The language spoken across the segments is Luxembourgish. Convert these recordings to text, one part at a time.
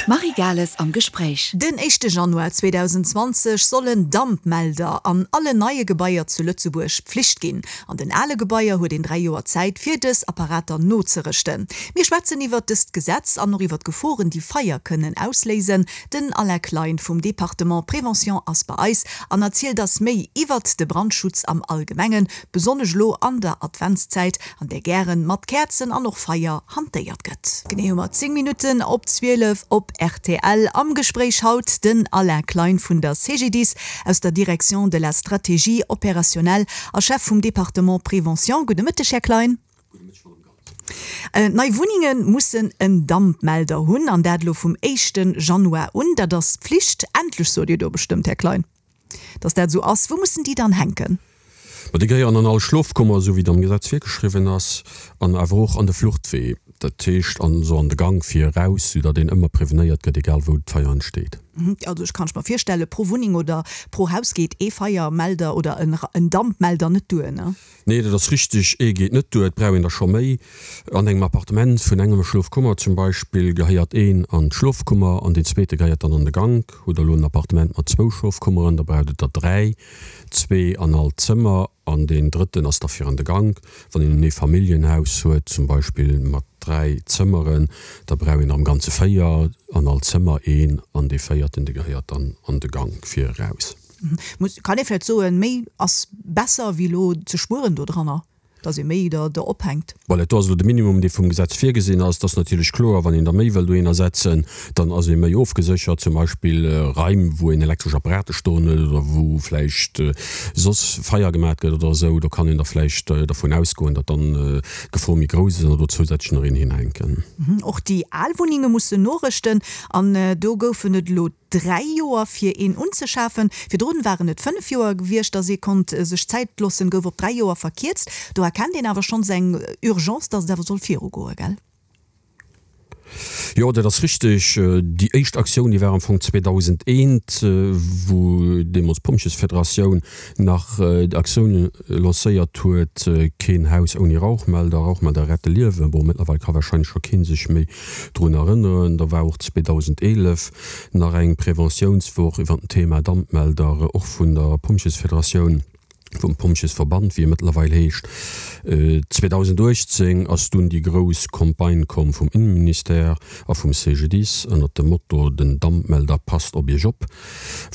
D'Marie Gales am Gespréich. Den éischte Januar 2020 sollen Dampmelder an allen neie Gebaier zu Lëtzebuerg Pflicht ginn. An den ale Gebaier huet een 3 Joer Zäit fir dës Apparater nozerëschten. Mir schwätzen iwwert dëst Gesetz an och iwwert d'Geforen déi Feier kënnen ausléisen. Den Alain Klein vum Département Prévention ass bei eis an erzielt ass méi iwwert de Brandschutz am Allgemengen, besonnesch elo an der Adventszäit, an där gären mat Käerzen an och Feier hantéiert gëtt. Genee hu mer 10 Minutten op 12 op rtl. Am Gespréich haut den Alain Klein vun der CGDIS aus der Direction de la Stratégie opérationnelle a Chef vum Département Prévention. Gudde Mëtteg, Här Klein. Gudde Mëtteg, Madame Gales. Nei Wunnenge mussen en Dampmelder hunn, an dat elo vum éischte Januar un. Dat ass Pflicht. Endlech, sot Dir do bestëmmt, Här Klein. Dass dat esou ass. Wou mussen déi dann hänken? Ma déi gehéieren an all Schlofkummer, esou wéi et am Gesetz virgeschriwwen ass, an awer och an de Fluchtwee, dat heescht an esou an de Gank fir eraus, soudatt een ëmmer prevenéiert gëtt, egal wou d'Feier entsteet. Also ech kann ech mer virstellen, pro Wunneng oder pro Haus geet ee Feiermelder oder en Dampmelder net duer, ne? Nee, dat ass richteg, ee geet net duer, et brauch een der scho méi. An engem Appartement vun engem Schlofkummer zum Beispill gehéiert een an d'Schlofkummer an deen zweete gehéiert dann an de Gank. Hutt der elo en Appartement mat zwou Schlofkummeren, da braucht et der dräi, zwee an all Zëmmer an deen drëtten ass da fir an de Gank. Wann een en Eefamilljenhaus huet zum Beispill mat dräi Zëmmeren, da brauch een der am Ganze véier, an all Zëmmer een an dee véierten, dee gehéiert dann an de Gank fir eraus. Muss, kann ee vläicht soen, méi ass besser wéi elo ze spueren dodranner, datt ee méi der der ophänkt? Voilà, do ass elo de Minimum, dee vum Gesetz virgesinn ass. Et ass natierlech kloer, wann een der méi wëll dohinner setzen, dann ass ee méi ofgeséchert, zum Beispill Raim, wou een elektresch Apparate stoen huet oder wou vläicht soss Feier gemat gëtt oder esou. Do kann een da vläicht dervun ausgoen, datt dann d'Gefor méi grouss ass an do zousätzlech nach een hinhänken. Och déi al Wunnenge mussen norëschten an do goufen et elo 3 Joer fir een unzeschafen. Virdrun waren et 5 Joer gewiescht, dass ee konnt sech Zäit loossen, gouf op 3 Joer verkierzt. Do erkennt een awer schonns eng Urgence, dass et awer soll virugoen, gell? Jo, dat ass richteg. Déi éischt Aktioun, déi war am Fong 2001, wou deemools d'Pompjesfederatioun nach d'Aktioun lancéiert huet, Keen Haus ouni Rauchmelder, Rauchmelder rette Liewen. Bon, mëttlerweil ka warscheinlech scho kee sech méi drun erënneren. Da war och 2011 nach eng Preventiounswoch iwwer den Thema Dampmelder, och vun der Pompjesfederatioun, vum Pompjesverband, wéi e mëttlerweil heescht. 2018 ass dunn déi grouss Campagne komm vum Innenministère a vum CGDIS ënnert dem Motto Den Dampmelder passt op Iech op,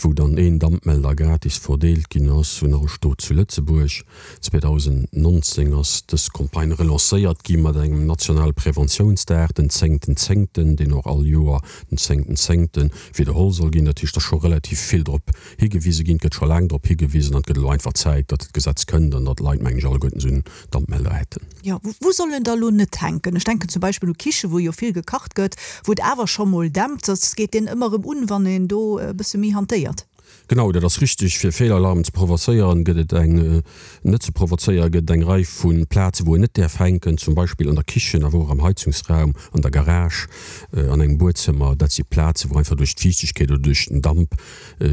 wou dann een Dampmelder gratis verdeelt ginn ass un all Stot zu Lëtzebuerg. 2019 ass dës Campagne relancéiert gi mat engem nationale Preventiounsdag, den zéngten zéngten, deen och all Joer den zéngten zéngte widderholl soll ginn. Dat heescht, et ass scho relativ vill drop higewise ginn, et gëtt scho laang drop higewisen an et gëtt elo einfach Zäit, datt d'Gesetz kënnt an datt d'Leit, mengen ech, alleguerten esou en Dampmelder hätten. Jo, wou soll en da lo net hänken? Ech denken zum Beispill u Kiche wou jo vill gekacht gëtt, wou et awer scho mol dämpt. Soss geet deen ëmmer erëm un, wann een do e bësse méi hantéiert. Genau, dat ass richteg. Fir Feelalarmen ze provozéieren, gëtt et eng, net ze provozéieren, gëtt et eng Rei vu Plazen, wou en net däerf hänken, zum Beispill an der Kichen, awer och am Heizungsraum, an der Garage, an engem Buedzëmmer. Dat si Plazen, wou einfach duerch d'Fiichtegkeet oder duerch den Damp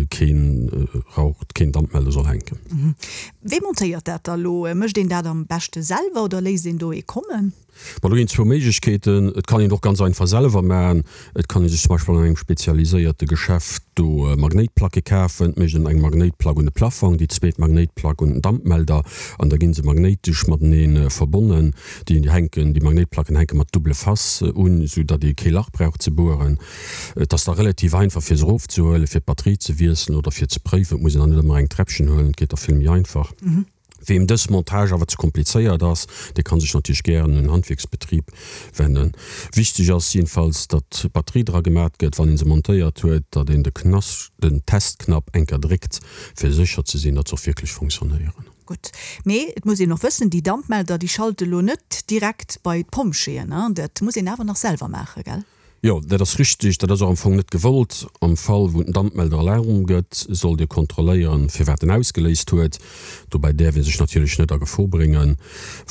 keen Rauch, keen Dampmelder soll hänken. Wee montéiert dat da lo? Mécht een dat am beschte selwer oder léisst een do ee kommen? Bon, do ginn et zwou Méiglechkeeten. Et kann een et och ganz einfach selwer maachen. Et kann ee sech zum Beispill an engem spezialiséierte Geschäft do Magnéitplacke kafen. Et mécht een eng Magnéitplack un de Plafong, déi zweet Magnéitplack un den Dampmelder an da gi se magnéitesch matenee verbonnen. Déi hänken, déi Magnéitplacken hänke mat double face un, esou datt ee kee Lach brauch ze bueren. Et ass da relativ einfach fir se erofzehuelen, fir d'Batterie ze wiesselen oder fir ze préiwen. Et muss een dann net ëmmer eng Träppchen huelen, et geet da vill méi einfach. Weem dës Montage awer ze komplizéiert ass, dee kann sech natierlech gären un en Handwierksbetrib wennen. Wichteg ass jedenfalls, datt d'Batterie dra gemat gëtt, wann een se montéiert huet, datt een de Knas, den Testknapp eng Kéier dréckt, fir sécher ze sinn, datt se och wierklech fonctionnéieren. Gutt, mee et muss een och wëssen, déi Dampmelder, déi schalte lo net direkt bei d'Pompjeeën, dat muss een awer nach selwer maachen, gell? Jo, dat ass richteg. Dat ass och am Fong net gewollt. Am Fall wou den Dampmelder Alarm gëtt, sollt Dir kontrolléieren, firwat en ausgeléist huet. Dobäi däerf ee sech natierlech net a Gefor bréngen.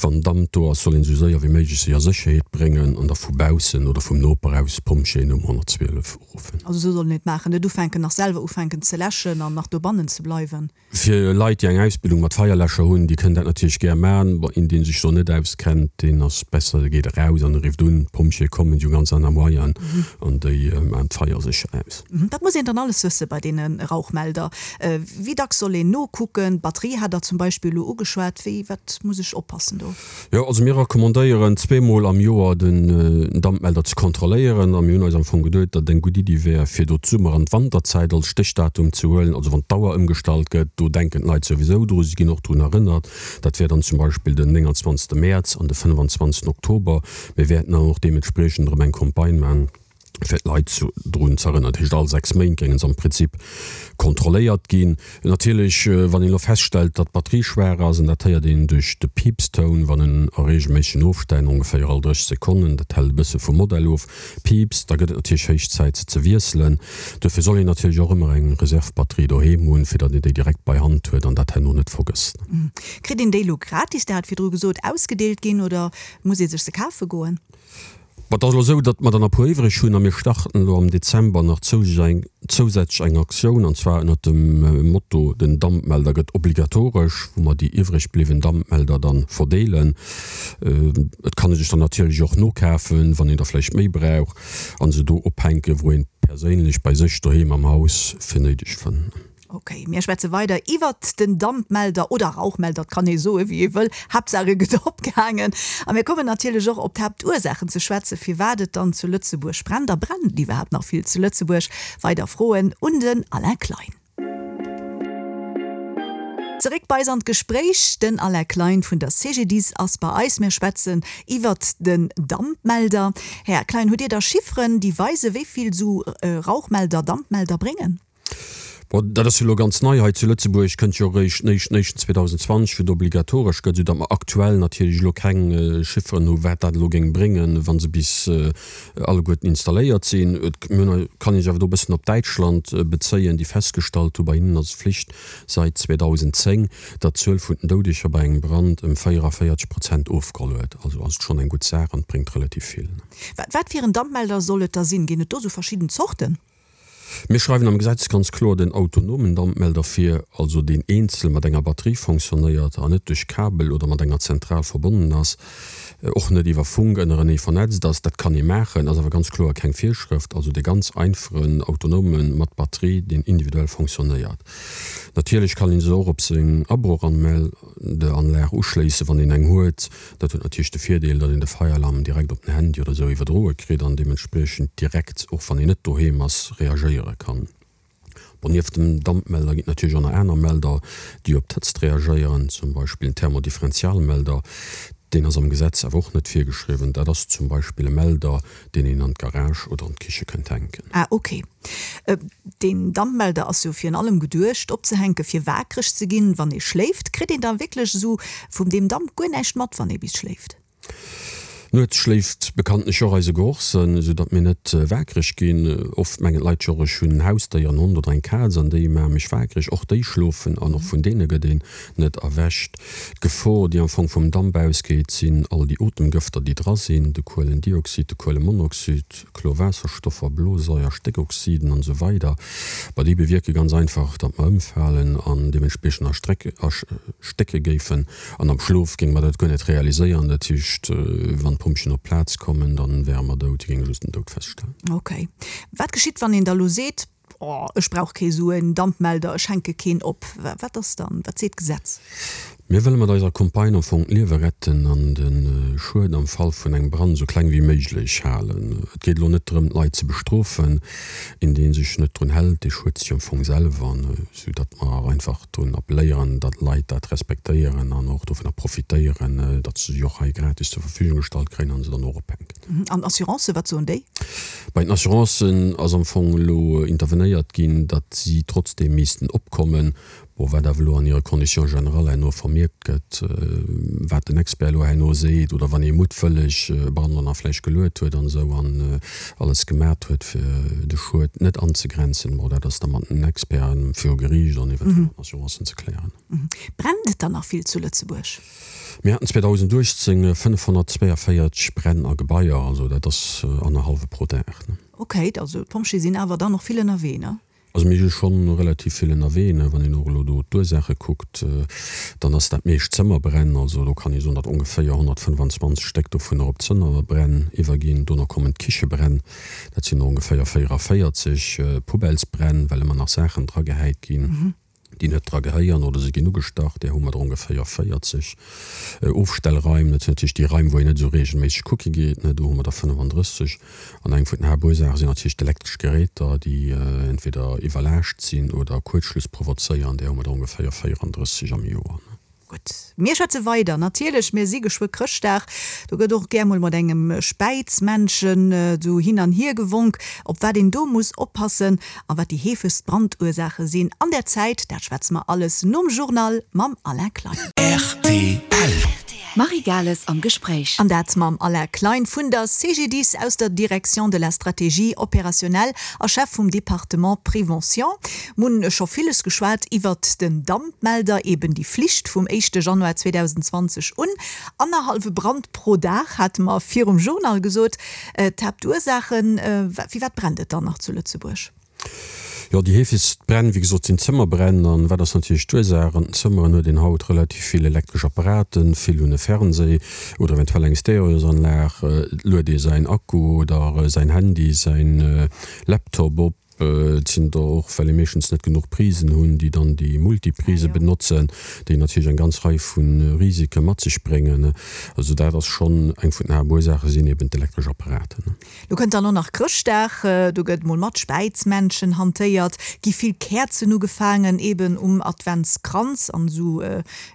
Wann Damp do ass, soll een esou séier wéi méiglech sech a Sécherheet bréngen an da vu baussen oder vum Noper aus d'Pompjeeën um 112 uruffen. Also esou soll een et maachen, net ufänken nach selwer ufänken ze läschen an nach dobannen ze bleiwen. Fir Leit, déi eng Ausbildung mat Feierläscher hunn, déi kënnen dat natierlech gär man. Bon, een, dee sech do net auskennt, deen ass besser, dee geet eraus an e rifft un. D'Pompjeeë kommen, déi hu ganz aner Moyenen. An déi maachen d'Feier sécher aus. Wat muss een dann alles wësse bei deene Rauchmelder? Wéi dacks soll een nokucken? D'Batterie hat Der zum Beispill elo ugeschwat. Wéi, wat muss ech oppassen do? Jo, also mir recommandéieren zweemol am Joer den Dampmelder ze kontrolléieren. A mir hunn eis am Fong geduet, datt et eng gutt Iddi wär, fir do d'Summer an d'Wanterzäit als Stéchdatum ze huelen. Also wann d'Auer ëmgestallt gëtt, do denken d'Leit souwisou dru, si ginn och drun erënnert. Dat wär dann zum Beispill den 29. Mäerz an de 25. Oktober. Mir wäerten dann och deementspriechend erëm eng Campagne maachen, fir d'Leit drun ze erënneren. Dat heescht, all 6 Méint géinge se am Prinzip kontrolléiert ginn. Natierlech, wann een elo feststellt, datt d'Batterie schwaach ass, an dat héiert een duerch de Piipstoun, wann en a reegelméissegen Ofstänn, ongeféier all 30 Sekonnen, dat hält e bësse vum Modell of, piipst, da gëtt et natierlech héich Zäit, se ze wiesselen. Duerfir soll een natierlech och ëmmer eng Reserve-Batterie doheem hunn, fir datt een déi direkt bei Hand huet an dat herno net vergësst. Kritt een déi elo gratis, Der hat virdru gesot, ausgedeelt ginn, oder muss ee sech se kafe goen? Bon, et ass elo esou, datt mer der nach e puer iwwreg hunn a mir starten elo am Dezember nach zousätzlech eng Aktioun, an zwar ënnert dem Motto Den Dampmelder gëtt obligatoresch, wou mer déi iwwreg bliwwen Dampmelder dann verdeelen. Et kann ee sech der natierlech och nokafen, wann een der vläicht méi brauch, a se do ophänken, wou een perséinlech bei sech doheem am Haus fir néideg fënnt. Ok, mir schwätze weider iwwert den Dampmelder oder Rauchmelder, et kann ee soe wéi ee wëll, Haaptsaach e gëtt opgehaangen. A mir kommen natierlech och op d'Haaptursaachen ze schwätzen, firwat et dann zu Lëtzebuerg brennt. A brennt et iwwerhaapt nach vill zu Lëtzebuerg? Weider Froen un den Alain Klein. Zeréck bei eis an d'Gespréich, Den Alain Klein vun der CGDIS ass bei eis. Mir schwätzen iwwert den Dampmelder. Här Klein, hutt Dir da Chifferen, déi weisen, wéi vill esou Rauchmelder, Dampmelder bréngen? Bon, dat ass jo elo ganz nei hei zu Lëtzebuerg, kënnt jo eréischt den éischten éischten 2020, wou et obligatoresch gëtt, esou datt mer aktuell natierlech elo keng Chifferen hu wat dat elo géing bréngen, wa se bis alleguerten installéiert sinn. Et kann ee sech awer do e bëssen op Däitschland bezéien, déi festgestallt hu, bei hinnen ass et Flicht sait 2010, datt d'Zuel vun den Doudeger bei engem Brand ëm 44 Prozent ofgeholl huet. Also ass et schonn eng gutt Saach an et bréngt relativ vill. Wat fir en Dampmelder soll et da sinn? Ginn et do esou verschidden Zorten? Mir schreiwen am Gesetz ganz kloer den autonomen Dampmelder vir, also deen eenzel mat enger Batterie fonctionnéiert an net duerch Kabel oder mat enger Zentral verbonnen ass, och net iwwer Funk ënnerenee vernetzt ass. Dat kann ee maachen, ass awer ganz kloer keng Virschrëft. Also dee ganz einfachen autonome mat Batterie, deen individuell fonctionnéiert. Natierlech kann ee se och op seng Abrochanmeldeanlag uschléissen, wann een eng huet. Dat huet natierlech de Virdeel, datt een de Feieralarm direkt op den Handy oder esou iwwerdroe kritt an deementspriechend direkt, och wann een net doheem ass, reagéiere kann. Bon, nieft dem Dampmelder ginn et natierlech och nach aner Melder, déi op d'Hëtzt reagéieren, zum Beispill en Thermodifferentialmelder. Deen ass am Gesetz awer och net virgeschriwwen. Dat ass zum Beispill e Melder, deen een an d'Garage oder an d'Kiche kënnt hänken. Ah, ok. Deen Dampmelder ass jo virun allem geduecht opzehänken fir waakreg ze ginn wann ee schléift. Kritt een da wierklech esou vum deem Damp guer näischt mat wann ee bis schléift? Nuets schléift bekanntlech och eise Gerochssënn, esou datt mir net waakreg ginn. Oft mengen d'Leit jo och ech hunn en Hausdéier, en Hond oder eng Kaz an déi maache mech waakreg. Och déi schlofen an och vun deene gëtt een net erwächt. D'Gefor déi am Fong vum Damp ausgeet sinn all déi Otemgëfter déi dra sinn, de Kuelendioxid, de Kuelemonoxid, Chlorwaasserstoffer, Blosaier, Stéckoxiden an esou weider Bah, déi bewierke ganz einfach, datt mer ëmfalen an deementspriechend erstécke géifen. An am Schlof géinge mer dat guer net realiséieren. Dat heescht, wann d'Pompjeeën op d'Plaz kommen, da wäre mer dout. Déi géinge just den Doud feststellen. Ok. Wat geschitt, wann een da lo seet, Oh, ech brauch kee sou en Dampmelder, ech hänke keen op? Wat ass dann, wat seet d'Gesetz? Mir wëlle mat eiser Campagne am Fong d'Liewe retten an de Schued am Fall vun engem Brand esou kleng wéi méiglech halen. Et geet elo net drëm, d'Leit ze bestrofen. Een, dee sech net drun hält, dee schued sech am Fong selwer, sou datt mer einfach drun appelléieren, datt d'Leit dat respektéieren an och dovunner profitéieren, datt se se och hei gratis zur Verfügung gestallt kréien an se dann och ophänken. An Assurancen, wat soen déi? Bei den Assurancen ass am Fong elo intervenéiert ginn, datt si trotzdeem missten opkommen. Bon, wat awer elo an hire Conditions générales herno vermierkt gëtt, wat den Expert elo herno seet, oder wann ee muttwëlleg e Brand dann nach vläicht geluet huet an esou an alles gemat huet, fir de Schued net anzegrenzen, bon, dat ass da mat den Experten viru Geriicht an eventuell mat den Assurancen ze klären. Brennt et dann nach vill zu Lëtzebuerg? Mir haten 2018 542 Bränn a Gebaier, also dat ass annerhallwe pro Dag. Okay, also d'Pompjeeë sinn awer dann och vill ënnerwee, ne? Also mir si schonn relativ vill ënnerwee. Wann een och elo do d'Ursaache kuckt, dann ass dat meescht Zëmmerbränn. Also do kann ee soen, datt ongeféier 125 Stéck dovunner op Zëmmerbränn iwwerginn. Dono kommen d'Kichebränn, dat sinn der ongeféier 44, Poubellesbränn, well ëmmer nach Saachen dragehäit ginn. déi net dra gehéieren oder se ginn ugestach, där hu mer der ongeféier 40. Ofstellraim, dat sinn natierlech déi Raim, wou een net esou reegelméisseg kucke geet, ne, do hu mer der 35. An eng vun den Haaptursaache sinn natierlech d'elektresch Geräter, déi entweder iwwerlaascht sinn oder Kuerzschluss provozéieren, där hu mer der ongeféier 34 am Joer. Gutt, mir schwätze weider natierlech. Mir si geschwë Chrëschtdag, do gëtt och gär mol mat engem Späizmännchen esou hin an hier gewonk. Op wat een do muss oppassen a wat déi heefegst Brandursaache sinn an der Zäit, dat schwätze mer alles nom Journal mam Alain Klein. Rtl. D'Marie Gales am Gespréich. An dat mam Alain Klein vun der CGDIS aus der Direction de la stratégie opérationnelle a Chef vum Département Prévention. Mir hunn scho villes geschwat iwwert den Dampmelder, eben déi Flicht vum éischte Januar 2020 un. Annerhallwe Brand pro Dag hate mer virum Journal gesot. D'Haaptursaachen, firwat brennt et dann nach zu Lëtzebuerg? Jo, déi heefegst Bränn, wéi gesot, sinn Zëmmerbränn. An wat ass natierlech d'Ursaach? An den Zëmmeren huet een haut relativ vill elektresch Apparaten. Vill hunn e Fernseh oder eventuell eng Stereosanlag. Et luet ee säin Akku oder säin Handy, säin Laptop op. Et sinn der och, well ee meeschtens net genuch Prisen hunn, déi dann déi Multiprise benotzen, déi natierlech eng ganz Rei vu Risike mat sech bréngen. Also dat ass schonn eng vun den Haaptursaache sinn eben d'elektresch Apparaten. Lo kënnt dann och nach Chrëschtdag, do gëtt mol mat Späizmännchen hantéiert, gi vill Käerzen ugefaangen, eben um Adventskranz an esou,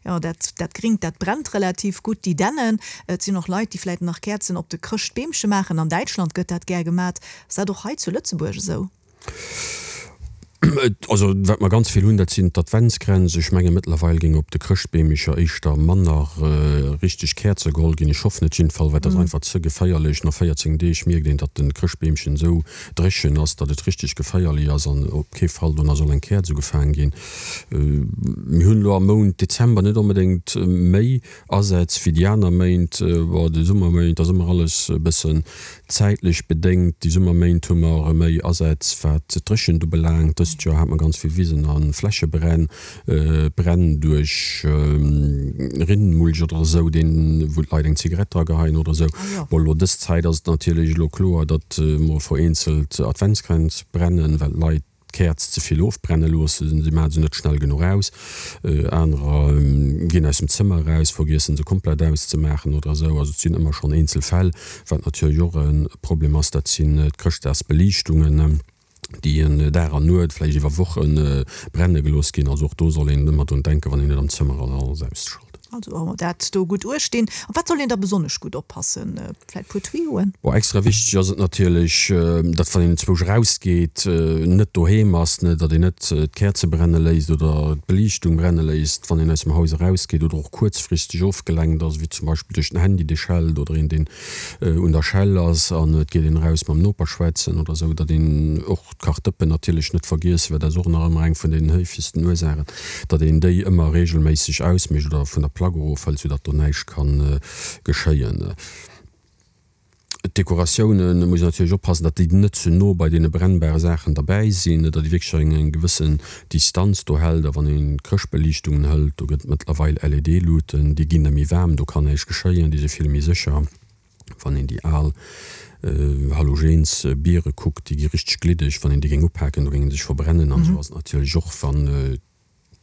jo dat dat Gringt dat brennt relativ gutt, déi Dännen. Et sinn och Leit, déi vläit nach Käerzen op de Chrëschtbeemche maachen, an Däitschland gëtt dat gär gemat. Ass dat och hei zu Lëtzebuerg esou? Also wat mer ganz vill hunn, dat sinn d'Adventskränz. Ech menge mëttlerweil géing op de Chrëschtbeemecher éischter manner richteg Käerze geholl ginn. Ech hoffen et jiddefall, well dat ass einfach ze geféierlech. No 14 Deeg mierkt een, datt de Chrëschtbeemchen esou dréchen ass, datt et richteg geféierlech ass an op kee Fall dono soll eng Käerz ugefaangen ginn. Mir hunn elo am Mount Dezember net onbedéngt méi Asätz wéi déi aner Méint. Bon, de Summerméint ass ëmmer alles e bëssen zäitlech bedéngt. Déi Summerméint hu mer méi Asätz wat d'Dréchent ubelaangt. Dëst Joer hat mer ganz vill Wisen a Flächebränn, Bränn duerch Rinnenmulch oder esou, deen, wou d'Leit eng Zigarett dra geheien oder esou. Bon, elo dës Zäit ass et natierlech elo kloer, datt mol vereenzelt Adventskränz brennen, well d'Leit, d'Käerz ze vill ofbrenne loossen, si maache se net schnell genuch aus, anerer ginn aus dem Zëmmer eraus, vergiessen se komplett auszemaachen oder esou. Also et sinn ëmmer schonn eenzel Fäll. Wat natierlech och e Problem ass, dat sinn d'Chrëschtdagsbeliichtungen, déi en Dag an Nuet, vläicht iwwer Woche brenne gelooss ginn. Also och do soll een ëmmer drun denken, wann een net am Zëmmer ass, alles auszeschalten. Also dat do gutt uecht dinn. Op wat soll een da besonnesch gutt oppassen? Vläit puer Tuyauxen? Bon, extra wichteg ass et natierlech, datt wann een enzwousch erausgeet, net doheem ass, ne, datt een net d'Käerze brenne léisst oder d'Beliichtung brenne léisst, wann een aus dem Haus erausgeet oder och kuerzfristeg ofgelenkt ass, wéi zum Beispill duerch den Handy, dee schellt oder een, deen un der Schell ass an et geet een eraus mam Noper schwätzen oder esou, datt een och d'Kachdëppen natierlech net vergiessen, well dat ass och nach ëmmer eng vun den héifegsten Ursaachen, datt een déi ëmmer reegelméisseg ausmécht oder vun der Plack erofhëlt, soudatt do näischt ka geschéien. D'Dekoratiounen, muss een natierlech oppassen, datt déi net ze no bei deene brennbare Saachen derbäi sinn, datt ee wierklech eng gewëssen Distanz do hält. A wann een Chrëschtbeliichtungen hëlt, do gëtt et mëttlerweil LED-Luuten, déi ginn da méi waarm, do kann näischt geschéien, déi si vill méi sécher. Wann een déi al Halogensbiere kuckt, déi gi richteg gliddeg, wann een déi géing upaken, do géing se sech verbrennen. An esou ass et natierlech och, wann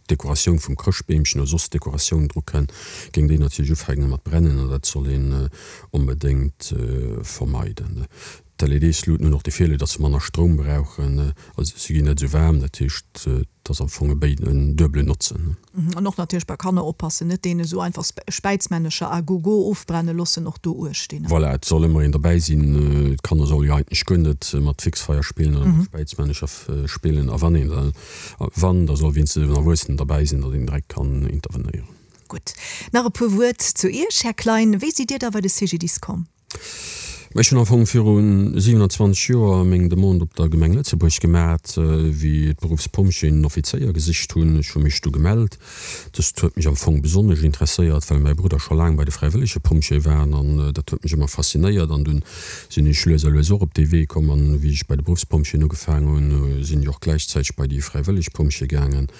d'Dekoratioun vum Chrëschtbeemchen oder soss Dekoratioun dru kënn, géing déi natierlech ufänke mat brennen an dat soll een onbedéngt vermeiden. D'LEDs-Luuten hunn och de Virdeel, datt se manner Stroum brauchen, also se ginn net esou waarm, dat heescht et ass am Fong e béid en duebelen Notzen. An och natierlech bei Kanner oppassen, net deene esou einfach Späizmännecher à gogo ofbrenne loossen, och do uecht dinn. Voilà, et soll ëmmer een derbäi sinn. D'Kanner solle jo eigentlech guer net mat Fixfeier spillen oder mat Späizmännecher spillen a wann een da Wann, da soll wéinstens en Erwuessenen derbäi sinn, datt een direkt kann intervenéieren. Gutt. Nach e puer Wuert zu Iech, Här Klein. Wéi sidd Dir da bei de CGDIS komm? Ech hunn am Fong viru 27 Joer meng Demande op der Gemeng Lëtzebuerg gemat, wéi d'Beruffspompjeeën en Offizéier gesicht hunn. Ech hu mech du gemellt. Dëst huet mech am Fong besonnesch interesséiert, well mäi Brudder scho laang bei de fräiwëllege Pompjeeë war an dat huet mech ëmmer faszinéiert. An dunn sinn ech lues a lues och op dee Wee komm an wéi ech bei de Beruffspompjeeën ugefaang hunn, sinn ech och gläichzäiteg bei déi fräiwëlleg Pompjeeë gaangen.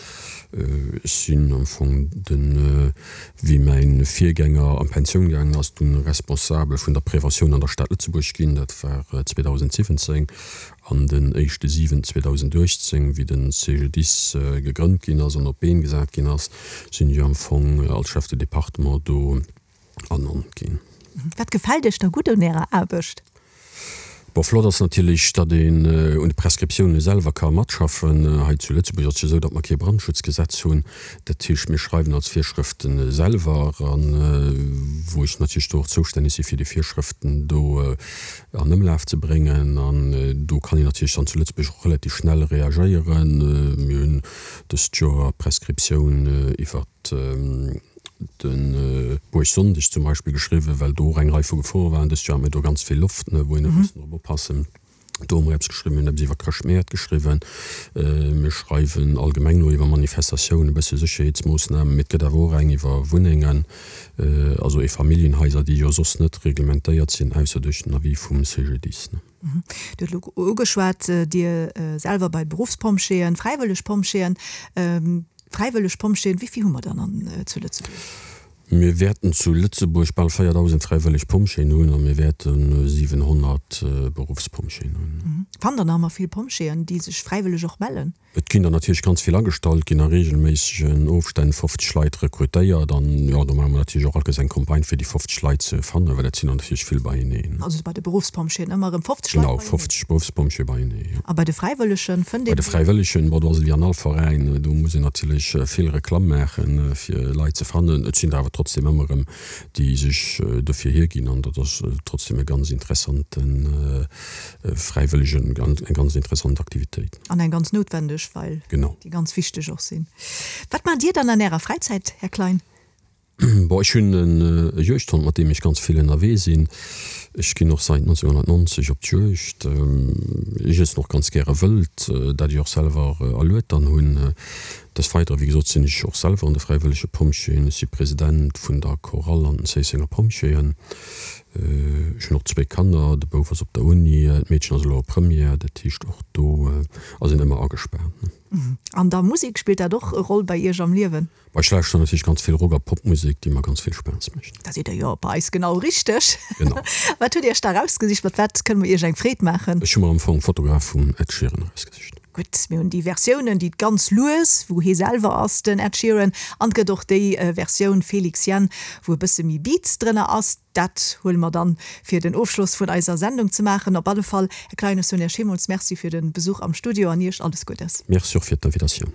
Ech sinn am Fong den wéi mäin Virgänger an d'Pensioun gaangen ass, dunn Responsabel vun der Preventioun an der Stad Lëtzebuerg ginn. Dat war 2017. An den éischte 7 2018, wéi den CGDIS gegrënnt ginn ass an op d'Been gesat ginn ass, sinn ech am Fong als Chef de département do ernannt ginn. Wat gefält Iech da gutt un Ärer Aarbecht? Bon, flott ass natierlech, datt een un de Prescriptioune selwer ka matschaffen. Hei zu Lëtzebuerg ass et jo esou, datt mer kee Brandschutzgesetz hunn. Dat heescht, mir schreiwen als Virschrëfte selwer an, wou ech natierlech do och zoustänneg si fir déi Virschrëften do an Ëmlaf ze bréngen. An do kann een natierlech dann zu Lëtzebuerg och relativ schnell reagéieren. Mir hunn dëst Joer d'Prescriptioun iwwert de Buergsonndeg zum Beispill geschriwwen, well do och eng Rei vu Gefore waren. Dëst Joer hat mir do ganz vill Loft, wou een huet mussen drop oppassen. Do hu mer eppes geschriwwen, mir hunn eppes iwwer Chrëschtmäert geschriwwen. Mir schreiwen allgemeng elo iwwer Manifestatiounen, e bësse Sécherheetsmoossnamen, mee et gëtt awer och eng iwwer Wunnengen, also Eefamilljenhaiser, déi jo soss net reglementéiert sinn, ausser duerch den Avis vum CGDIS. Dir hutt elo ugeschwat, Dir selwer bei Beruffspompjeeën, fräiwëlleg Pompjeeën. Fräiwëlleg Pompjeeën, wéi vill hu mer dann an zu Lëtzebuerg? Mir wäerten zu Lëtzebuerg bal 4.000 fräiwëlleg Pompjeeën hunn a mir wäerte 700 Beruffspompjeeën hunn. Fannt Der nach ëmmer vill Pompjeeën, déi sech fräiwëlleg och mellen? Et ginn der natierlech ganz vill agestallt, ginn a reegelméissegen Ofstänn 50 Leit rekrutéiert an jo, do maache mer natierlech och allkéiers eng Campagne fir déi 50 Leit ze fannen, well dat sinn der natierlech vill beieneen. Also bei de Beruffspompjeeën ëmmer erëm 50 Leit beieneen? Genau, 50 Beruffspompjeeë beienee, jo. A bei de Fräiwëllegen fënnt een. Bei de Fräiwëllegen, bon, do ass et wéi an all Veräin, do muss een natierlech vill Reklamm maachen, fir Leit ze fannen. Et sinn der awer trotzdem ëmmer erëm, déi sech dofir hierginn an dat ass trotzdem e ganz interessante Fräiwëllegen, eng ganz interessant Aktivitéit. An eng ganz noutwendeg, well déi ganz wichteg och sinn. Wat maacht Dir dann an Ärer Fräizäit, Här Klein? Bon, ech hunn e Juegdhond, mat deem ech ganz vill ënnerwee sinn. Ech ginn och säit 1990 op d'Juegd. Ech iessen och ganz gäre Wëld, dat ech och selwer erluet dann hunn. Des Weidere, wéi gesot, sinn ech och selwer an de Fräiwëllege Pompjeeën. Ech si President vun der Chorale an den Zéissenger Pompjeeën. Ech hunn och zwéi Kanner, de Bouf ass op der Uni, d'Meedchen ass elo a Première. Dat heescht, och do ass een ëmmer agespaant. An da Musek, spillt dat och e Roll bei Iech am Liewen? Ech lauschteren natierlech ganz vill Rock a Popmusek, déi mer ganz vill Spaass mécht. Da sidd der jo bei eis genau richteg. Genau. Wat hutt Iech da erausgesicht? Mat wat kënne mer Iech eng Freed maachen? Ech hu mer am Fong Photograph vum Ed Sheeran erausgesicht. Gutt, mir hunn déi Versiounen, déi ganz lues, wou hie selwer ass, den Ed Sheeran, an et gëtt och déi Versioun Felix Jaehn, wou e bësse méi Beats drënner ass. Dat huele mer dann, fir den Ofschloss vun eiser Sendung ze maachen. Op alle Fall, Här Klein, ech soen Iech villmools Merci fir de Besuch am Studio an Iech alles Guddes. Merci och fir d'Invitatioun.